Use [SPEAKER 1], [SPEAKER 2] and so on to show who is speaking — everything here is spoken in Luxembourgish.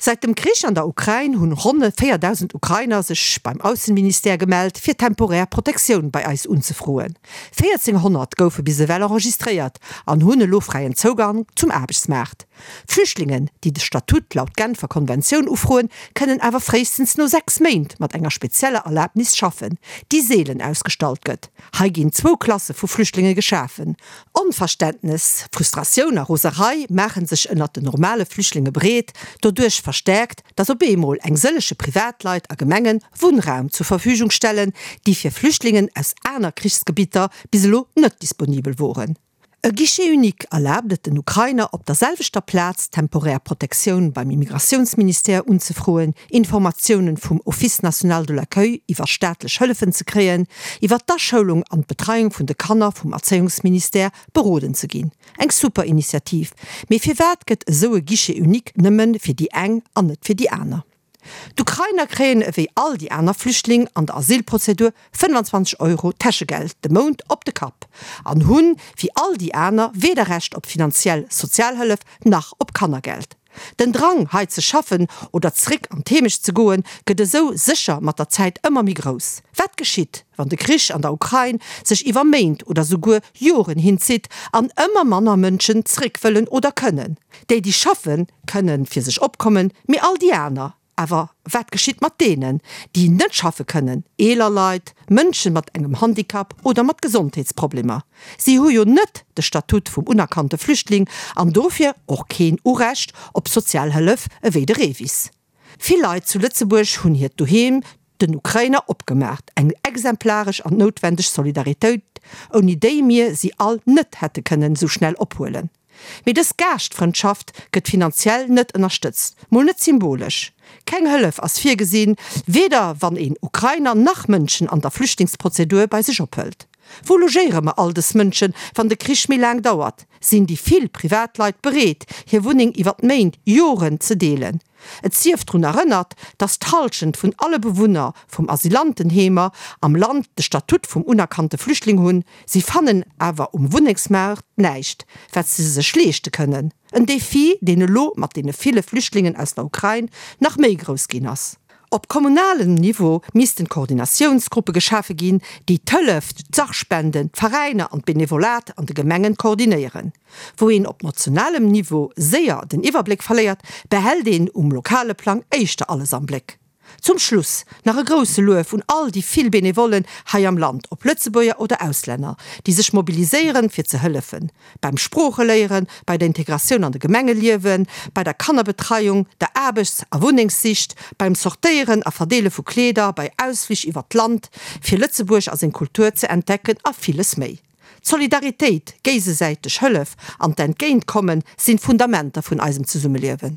[SPEAKER 1] Säit dem Krich an der Ukrain hunn ronne 4.000 Ukrainer sech beim Aussenministère gemellt, fir temporär Protektioun bei eis unzefroen. 1.400 goufe bis ewell enregistréiert an hunn elo fräien Zougang zum Aarbechtsmaart. Flüchtlingen, déi de Statut laut Genfer Konventioun ufroen, kënnen awer fréistens no 6 Méint mat enger spezieller Erlabnis schaffen, déi seelen ausgestallt gëtt. Hei ginn zwou Klasse vu Flüchtlinge geschafen. Onverständnes, Frustratioun a Roserei maache sech ënnert den normale Flüchtlinge breet, doduerch verstäerkt, datt op eemol eng sëllege Privatleit a Gemenge Wunnraum zur Verfügung stellen, déi fir Flüchtlingen aus aner Krichsgebitter bis elo net disponibel woren. E Guichet unique erlaabt et den Ukrainer op der selwechter Plaz temporär Protektioun beim Immigratiounsministère unzefroen, Informatiounen vum Office national de l'accueil iwwer staatlech Hëllefen ze kréien, iwwer d'Aschoulung an d'Betreiung vun de Kanner vum Erzéiungsministère beroden ze ginn. Eng super Initiativ, mee firwat gëtt esou e Guichet unique nëmmen fir déi eng an net fir déi aner? D'Ukrainer kréien ewéi all déi aner Flüchtling an der Asylprozedur 25 Euro Täschegeld de Mount op de Kapp an hunn, wéi all déi aner, weder Recht op finanziell Sozialhëllef nach op Kannergeld. Den Drang, hei ze schaffen oder zréck an d'Heemecht ze goen, gëtt esou sécher mat der Zäit ëmmer méi grouss. Wat geschitt, wann de Krich an der Ukrain sech iwwer Méint oder souguer Joren hinzitt an ëmmer manner Mënschen zréck wëllen oder kënnen? Déi, déi schaffen, kënnen fir sech opkommen, mee all déi aner? Awer wat geschitt mat deenen, déi net schaffe kënnen, eeler Leit, Mënschen mat engem Handicap oder mat Gesondheetsproblemer? Si hu jo net de Statut vum unerkannte Flüchtling an dofir och keen Urecht op Sozialhëllef ewéi de REVIS. Vill Leit zu Lëtzebuerg hunn hiert Doheem den Ukrainer opgemaacht, eng exemplaresch an noutwendeg Solidaritéit, ouni déi mir si all net hätte kënnen esou schnell ophuelen. Mee dës Gaaschtfrëndschaft gëtt finanziell net ënnerstëtzt, mol net symbolesch. Keng Hëllef ass virgesinn, weder wann een Ukrainer nach Mënschen an der Flüchtlingsprozedur bei sech ophëlt. Wou logéiere mer all dës Mënschen, wann de Krich méi laang dauert? Sinn déi vill Privatleit bereet, hir Wunneng iwwert Méint, Joren ze deelen? Et sief drun erënnert, datt d'Hallschent vun alle Bewunner vum Asylantenheemer am Land de Statut vum unerkannte Flüchtling hunn. Si fannen awer um Wunnengsmaart näischt, wat se sech leeschte kënnen. En Defi, deen elo mat deene ville Flüchtlingen aus der Ukrain nach méi grouss ginn ass. Op kommunalem Niveau missten Koordinatiounsgruppe geschafe ginn, déi d'Hëllef, d'Sachspenden, d'Veräiner an d'Benevolat an de Gemengen koordinéieren. Wou een op nationalem Niveau séier den Iwwerbléck verléiert, behält een um lokale Plang éischter alles am Bléck. Zum Schluss nach e grousse Luef un all déi vill Benevollen hei am Land, ob Lëtzebuerger oder Auslänner, déi sech mobiliséieren fir ze hëllefen beim Sproocheléieren, bei der Integratioun an de Gemengeliewen, bei der Kannerbetreiung, der Aarbechts a Wunnengssicht, beim Sortéieren a Verdeele vu Kleeder, bei Ausflich iwwert d'Land fir Lëtzebuerg a seng Kultur ze entdecken a villes méi. D'Solidaritéit, géisesäiteg Hëllef an d'Entgéintkommen sinn d'Fundamenter vun eisem Zesummeliewen.